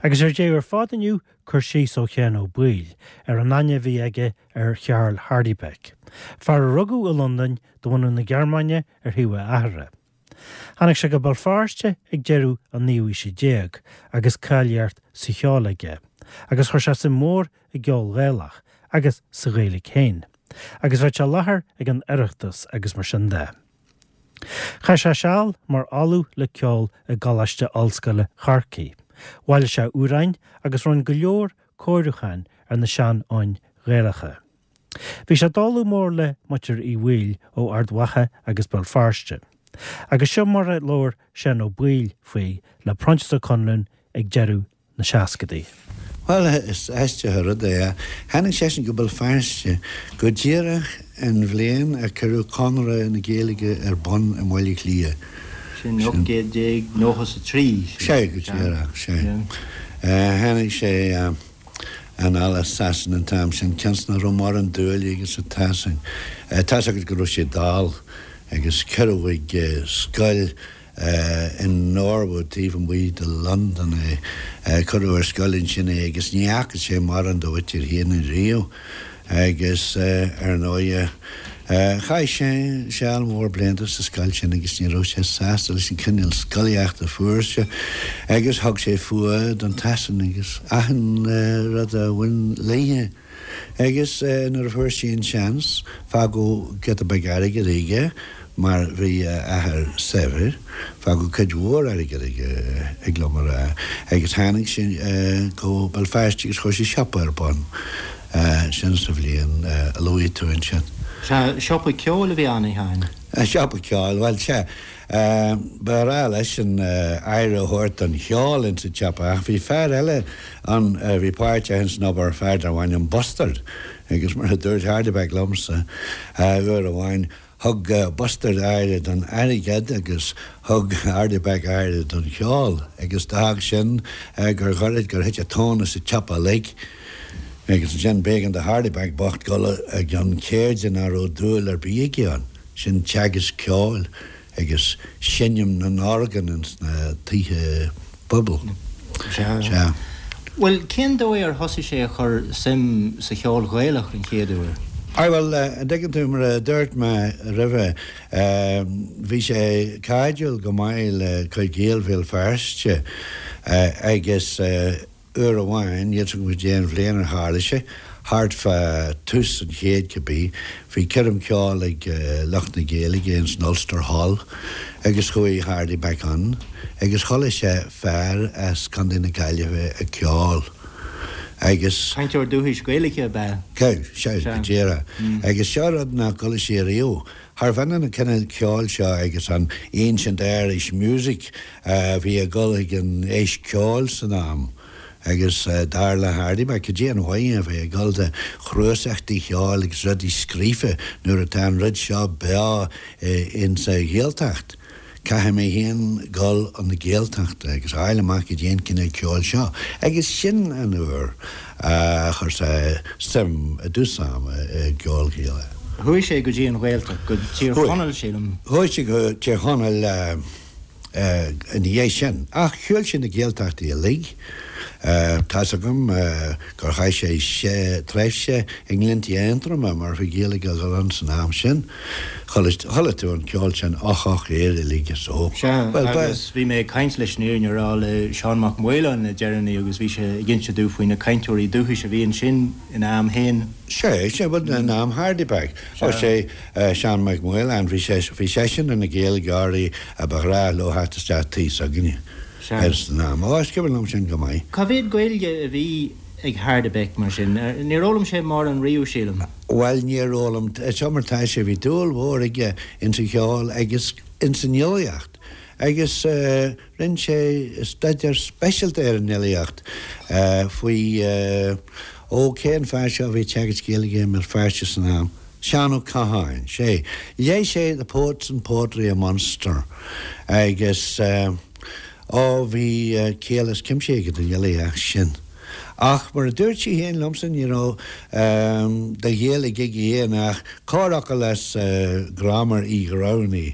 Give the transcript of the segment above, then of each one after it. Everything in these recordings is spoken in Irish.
Agus ar deireadh ar fad inniu, cur síos ó Sheán Ó Baoill ar an aithne a bhí aige ar Charl Hardybeck, fear a rugadh i Londain de bhunadh na Gearmáine ar thaobh a athara. Tháinig sé go Béal Feirste ag deireadh an naoú haoise déag agus cáilíocht sa cheol aige, agus chuir sé suim mhór i gceol Gaelach agus sa Ghaeilge féin, agus bheadh sé i láthair ag an Oireachtas agus mar sin de. Chaith sé seal mar ollamh le ceol i gColáiste Ollscoile Chorcaí, bhailigh sé amhráin agus rinne go leor cóiriúcháin ar na sean-fhoinn Ghaelacha. Bhí sé dála mór le muintir Uí Bhaoill ó Ard Mhacha agus Béal Feirste. Agus seo mar a labhair Seán Ó Baoill faoi le Proinsias Ó Conluain ag deireadh na seascadaí. Bhuel, is aisteach an rud é. Tháinig seisean go Béal Feirste go díreach an bhliain a cuireadh Conradh na Gaeilge ar bun i mBaile Átha Cliath. Sin 1893. Sea, go díreach, sea. Tháinig sé anall as Sasana an t-am sin, cionn is nach raibh mórán dúile aige sa tSasain. Tá's agat go raibh sé dall agus cuireadh chuig scoil in Norwood taobh amuigh de Londain é. Cuireadh ar scoil ansin é agus ní fhaca sé mórán dá mhuintir féin riamh agus ar ndóighe chaith sé seal mór blianta sa scoil sin agus ní raibh sé sásta leis an cineál scolaíochta a fuair sé agus thug sé fuath don tSasain agus achan rud a bhain léithe. Agus nuair a fuair sé an seans, fágadh giota beag airgid aige, mar bhí a athair saibhir, fágadh cuid mhór airgid aige, thig liom a rá, agus tháinig sé go Béal Feirste agus chuir sé siopa ar bun, sin sa bhliain a luaigh tú ansin. Sea, siopa ceoil a bhí ann, a Sheáin? Siopa ceoil, bhuel, sea. Ba ghnách leisean aire a thabhairt don cheol ins an tsiopa ach bhí fear eile ann a bhí páirteach ins an obair, fear darbh ainm Bustard, agus mar a dúirt Hardebec liomsa uair amháin, thug Bustard aire don airgead agus thug Hardebec aire don cheol agus d'fhág sin gur ghoirid gur thit an tóin as an tsiopa uilig. Agus ansin b'éigean do Hardebec bocht dul i gcionn ceirde nach raibh dúil ar bith aige ann. Sin teagasc ceoil agus seinm na n-orgán ins na tithe pobail. Sea. Bhuel, cén dóigh ar thosaigh sé a chur suim sa cheol Ghaelach an chéad uair? Aye, bhuel, an dtuigeann tú, mar a dúirt mé roimhe, bhí sé cairdiúil go maith le cuid Gaeil Bhéal Feirste agus, Uair amháin, níl 's agam cad é an bhliain ar tharla sé, thart fá tús an chéid cibé, bhí coirm ceoil ag lucht na Gaeilge ins an Ulster Hall agus chuaigh Hardebec ann agus chuala sé fear as Contae na Gaillimhe ag ceol agus. Cainteoir dúchais Gaeilge ab ea? Sea, go díreach. Agus seo rud nach gcuala sé riamh. Charbh ionann an cineál ceoil seo agus an ancient Irish music a bhí ag dul ag an Fheis Ceoil san am agus dar le Hardebec, cad é an mhaith a bheith ag dul do chnuasachtaí cheoil agus rudaí scríofa nuair atá an rud seo beo insa Ghaeltacht. Caithfidh mé féin dul chun na Gaeltachta agus a fháil amach cad é an cineál ceoil seo. Agus sin an uair a chuir sé suim i dtús ama i gceol Gaelach. Chuaigh sé go dtí an Ghaeltacht, go Tír Chonaill, sílim. Chuaigh sé go Tír Chonaill ina dhiaidh sin. Ach shiúil sé na Gaeltachtaí uilig. Tá's agam gur chaith sé tréimhse i nGleanntaí Aontroma mar bhí Gaeilge ag dul ann san am sin. Chuala tú an ceol sin, Och Och Éire uilig is ó. Sea, agus bhí mé ag caint leis an fhírinne a rá le Seán Mac Maoláin le deireanaí agus bhí sé ag inse domh faoi na cainteoirí dúchais a bhí ansin ina am féin. Sea, sea, bhuel in am Hardebec. Ó sea, Seán Mac Maoláin, bhí sé, bhí seisean ar na Gaeilgeoirí a ba ghnách leo theacht isteach tigh s'againne. San am. Ó, is cuimhin liom sin go maith. Cá mhéad Gaeilge a bhí ag Hardebec, mar sin? Níor fhoghlaim sé mórán riamh, sílim. Bhuel, níor fhoghlaim. Seo mar tá sé, bhí dúil mhór aige ins an cheol agus ins an fhilíocht agus rinne sé staidéar speisialta ar an fhilíocht faoi, ó, cén fear seo a bhí ag teagasc Gaeilge i mBéal Feirste san am? Seán Ó Catháin, sea. Léigh sé The Poets and Poetry of Munster agus ó bhí ciall as cuimse aige don fhilíocht sin. Ach mar a dúirt sé féin liomsa ní raibh de Ghaeilge aige féin ach corrfhocal as Graiméar Uí Ghramhnaigh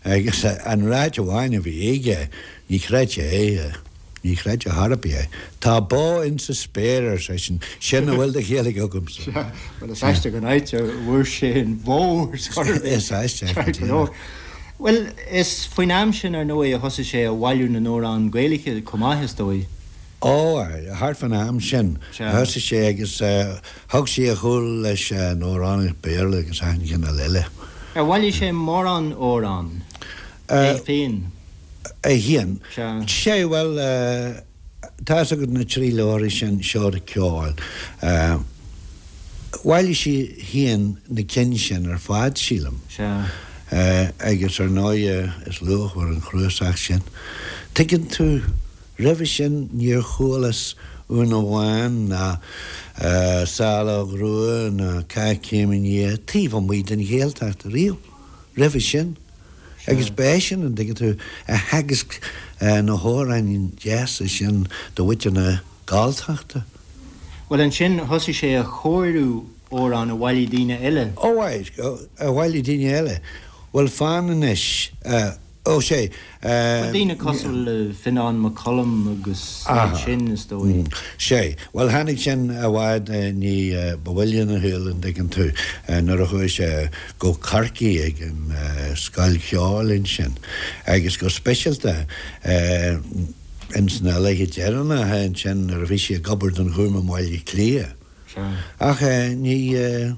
agus an ráit amháin a bhí aige, ní chreid sé é. Ní chreidfeá chor ar bith é. Tá bó insa spéir, ar seisean, sin a bhfuil de Ghaeilge agamsa. Sea, bhuel is aisteach an áit a bhfuair sé an bhó ar scor ar bith. Is aisteach go díreach. Bhuel, is faoin am sin, ar ndóigh, a thosaigh sé a bhailiú na n-amhrán Gaeilge chomh maith, is dóigh. Ó, thart fán am sin a thosaigh sé agus thug sé a chúl leis an amhránaíocht Béarla agus achan chineál eile. Ar bhailigh sé mórán amhrán é féin? É féin? Sea. Sea, bhuel, tá fhios agat na trí leabharthaí sin, Seoda Ceoil. Bhailigh sé féin na cinn sin ar fad, sílim. Sea. Agus ar ndóighe is luachmhar an cnuasach sin. Tuigeann tú, roimhe sin níor chualas Úna Bhán ná Saileog Rua ná Cath Céim Nia taobh amuigh den Ghaeltacht riamh roimhe sin. Agus ba eisean, an dtuigeann tú, a theagasc na hamhráin deasa sin do mhuintir na Galltachta. Bhuel, ansin thosaigh sé a chóiriú amhrán a bhailigh daoine eile. Ó, a bhailigh daoine eile. Bhuel, fan anois. Ó, sea. Bhuel, daoine cosúil le Fionán Mac Coluim agus iad sin, is dóigh. Sea. Bhuel, tháinig sin i bhfad ní ba mhoille ina shaol, an dtuigeann tú, nuair a chuaigh sé go Corcaigh ag an scoil cheoil ansin agus go speisialta ins na laethe deireanacha ansin nuair a bhí sé ag obair don Ghúm i mBaile Átha Cliath. Ach ní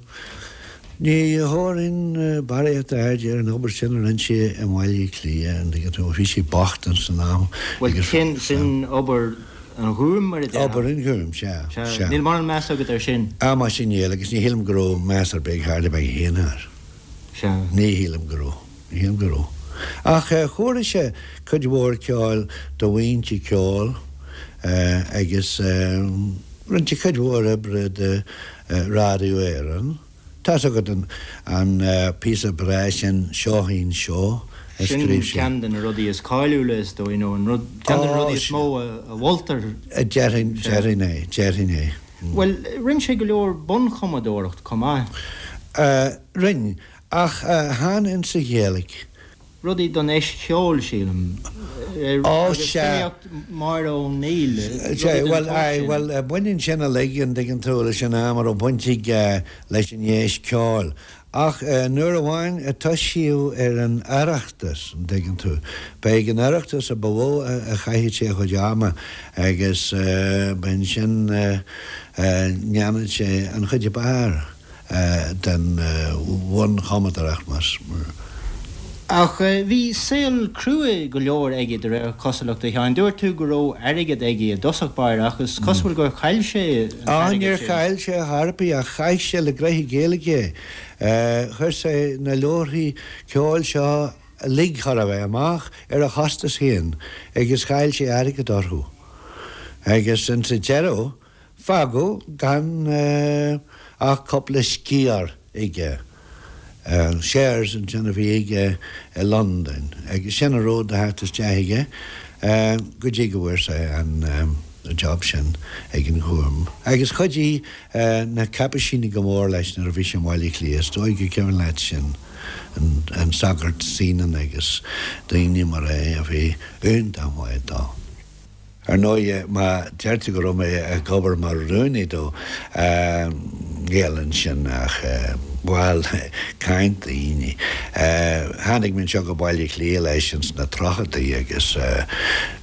ní thabharfainn barraíocht airde ar an obair sin a rinne sé i mBaile Átha Cliath, an dtuigeann tú, bhí sé bocht ins an am Bhuel, agus sin, sin obair an Ghúim, mar a déarfá. Obair an Ghúim, sea, Sea. sea. Níl mórán meas agat air sin? Ah, muise níl, agus ní shílim go raibh meas ar bith ag Hardy Beag féin air. Sea. Ní shílim go raibh. Ní shílim go raibh. Ach chóirigh sé cuid mhór ceoil do bhuíonta ceoil agus rinne sé cuid mhór oibre do Radio Éireann. Tá's agat an píosa breá sin Seoithín Seó a Sin scríobh sé. ceann de na rudaí is cáiliúla is dóigh, nó an rud, ceann de na rudaí is mó a mholtar. Déarfainn, déarfainn é, déarfainn é. Bhuel, rinne sé go leor bunchumadóireacht chomh maith. Rinne, ach chan insa Ghaeilge. Rudaí don Fheis Cheoil, sílim. Ó, Agus sea. filíocht Mháire O'Neill, rudaí Sea, den bhuel, tsórt aye, sin. bhuel, baineann sin uilig, an dtuigeann tú, leis an am a raibh baint aige leis an Fheis Ceoil. Ach nuair amháin a toisíodh ar an Oireachtas, an dtuigeann tú, ba ag an Oireachtas a ba mhó a chaitheadh sé a chuid ama agus ba ansin a ndéanadh sé an chuid ab fhearr. den bhunchumadóireacht más. Ach bhí saol crua go leor aige de réir cosúlachta, a Sheáin. Dúirt tú go raibh airgead aige i dtosach báire ach is cosúil gur chaill sé an t-airgead sin. Níor chaill sé a chor ar bith ach chaith sé le gnoithí Gaeilge é. Chuir sé na leabharthaí ceoil seo uilig chóir a bheith amach ar a chostas féin agus chaill sé airgead orthu. Agus insa deireadh Fágadh gan ach cúpla sciar aige, shares ansin a bhí aige i Londain, agus sin a raibh de theacht isteach aige go dtí go bhfuair sé an job sin ag an Ghúm. Agus chuidigh na Caipisínigh go mór leis nuair a bhí sé i mBaile Átha Cliath, is dóigh gur cuimhin leat sin, an sagart Senan agus daoine mar é a bhí iontach maith dó. Ar ndóigh, má deir tú go raibh mé ag obair mar rúnaí dó, níl ansin ach, bhuel, caint daoine. Tháinig mé anseo go Baile Átha Cliath leis ins na tríochaidí agus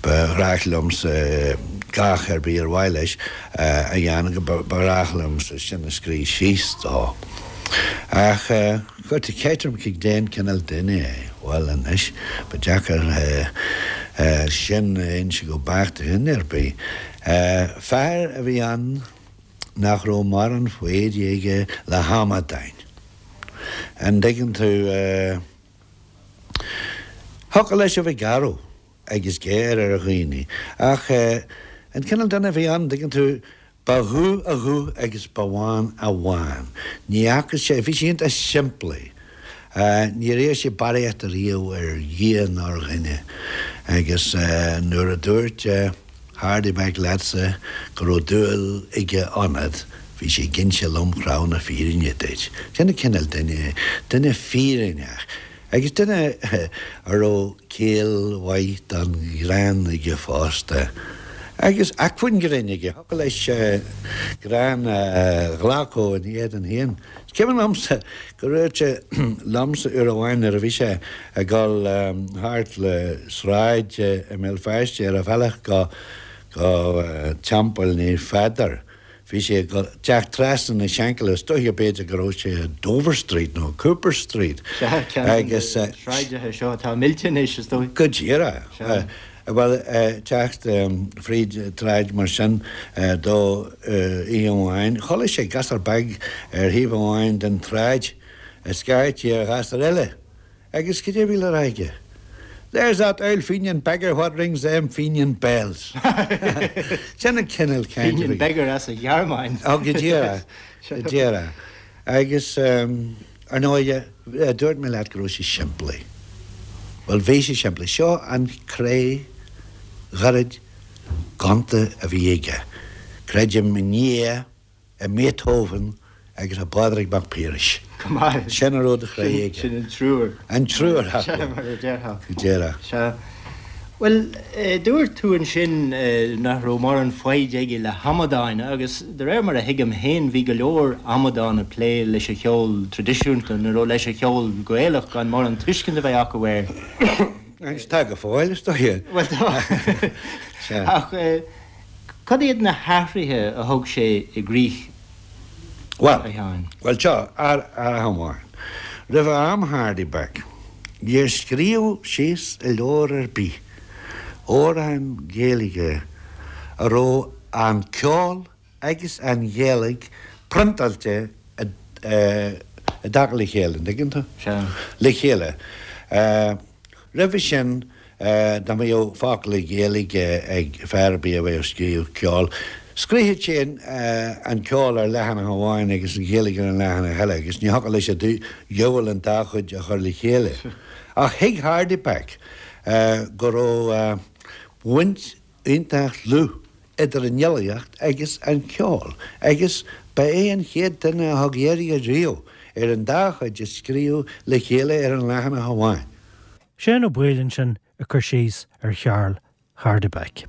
ba ghnách liomsa gach ar bith ar mhaith leis a dhéanamh, ba ghnách liomsa sin a scríobh síos dó. Ach chuir tú ceist orm cén cineál duine é. Bhuel anois, ba deacair sin a inse go beacht do dhuine ar bith. Fear a bhí ann nach raibh mórán foighde aige le hamadáin. An dtuigeann tú? Thiocfadh leis a bheith garbh agus géar ar dhaoine, ach an cineál duine a bhí ann, an dtuigeann tú, Ba dhubh a ghuth agus ba bhán a bhán. Ní fhaca sé, bhí sé iontach simplí. Níor iarr sé barraíocht ariamh ar Dhia ná ar dhuine. Agus nuair a dúirt Hardy Beck leatsa go raibh dúil aige ionat, bhí sé ag inse lom chrá na fírinne duit. Sin an cineál duine é, duine fírinneach. Agus duine a raibh ciall mhaith don ghreann aige fosta. Agus acmhainn grinn aige, thiocfadh leis greann a ghlacadh ina éadan féin. Is cuimhin liomsa go ndúirt sé liomsa uair amháin nuair a bhí sé ag dul thart le sráid i mBéal Feirste ar a bhealach go go Teampall Naomh Pheadar, bhí sé ag teacht trasna na Shankill, is dóiche b'fhéidir go raibh sé i Dover Street nó Cooper Street. Sea, ceann de na sráideacha seo atá millte anois, is dóigh. Go díreach. Sea. Bhuel, teacht fríd tsráid mar sin dó oíche amháin, chuala sé gasúr beag ar thaobh amháin den tsráid ag scairtigh ar ghasúr eile. Agus cad é a bhí le rá aige? There's that oul Fenian beggar what rings them Fenian bells. Sin an cineál cainte. Fenian beggar as an Ghearmáin. Ó, go díreach, go díreach. Agus, ar ndóighe, dúirt mé leat go raibh sé simplí. Bhuel, bhí sé simplí. Seo an cré ghairid ghonta a bhí aige. Creidim i nDia. i mBeethoven agus i bPádraig Mac Piarais. Go maith. Sin a raibh de chroí aige. Sin an triúr. An triúr acu. Sea, mar a déarfá. Go díreach. Sea. Bhuel, dúirt tú ansin nach raibh mórán foighid aige le hamadáin agus de réir mar a thuigim féin bhí go leor amadán ag plé leis an cheol traidisiúnta nó leis an cheol Gaelach gan mórán tuiscint a bheith acu air. Agus tá go fóill, is dóigh. Bhuel tá. Sea. Ach. Cad iad na hathruithe a thug sé i gcrích, a Sheáin? Bhuel, seo, athrach amháin. Roimh am Hardy Beck, níor scríobhadh síos i leabhar ar bith amhrán Gaeilge a raibh an ceol agus an Ghaeilge priontáilte i dtaca le chéile, an dtuigeann tú? Sea. Le chéile. Roimhe sin, dá mbeadh focal Gaeilge ag fear ar bith a bheadh ag scríobh ceoil, scríobhadh sé an ceol ar leathanach amháin agus an Ghaeilge ar an leathanach eile agus ní thiocfadh leis an diabhal an dá chuid a chur le chéile. Ach thuig Hardy Beck go raibh baint iontach dlúth idir an fhilíocht agus an ceol agus ba é an chéad duine a thug iarraidh riamh ar an dá chuid a scríobh le chéile ar an leathanach amháin. Seán Ó Baoill ansin ag cur síos ar Charl Hardebeck.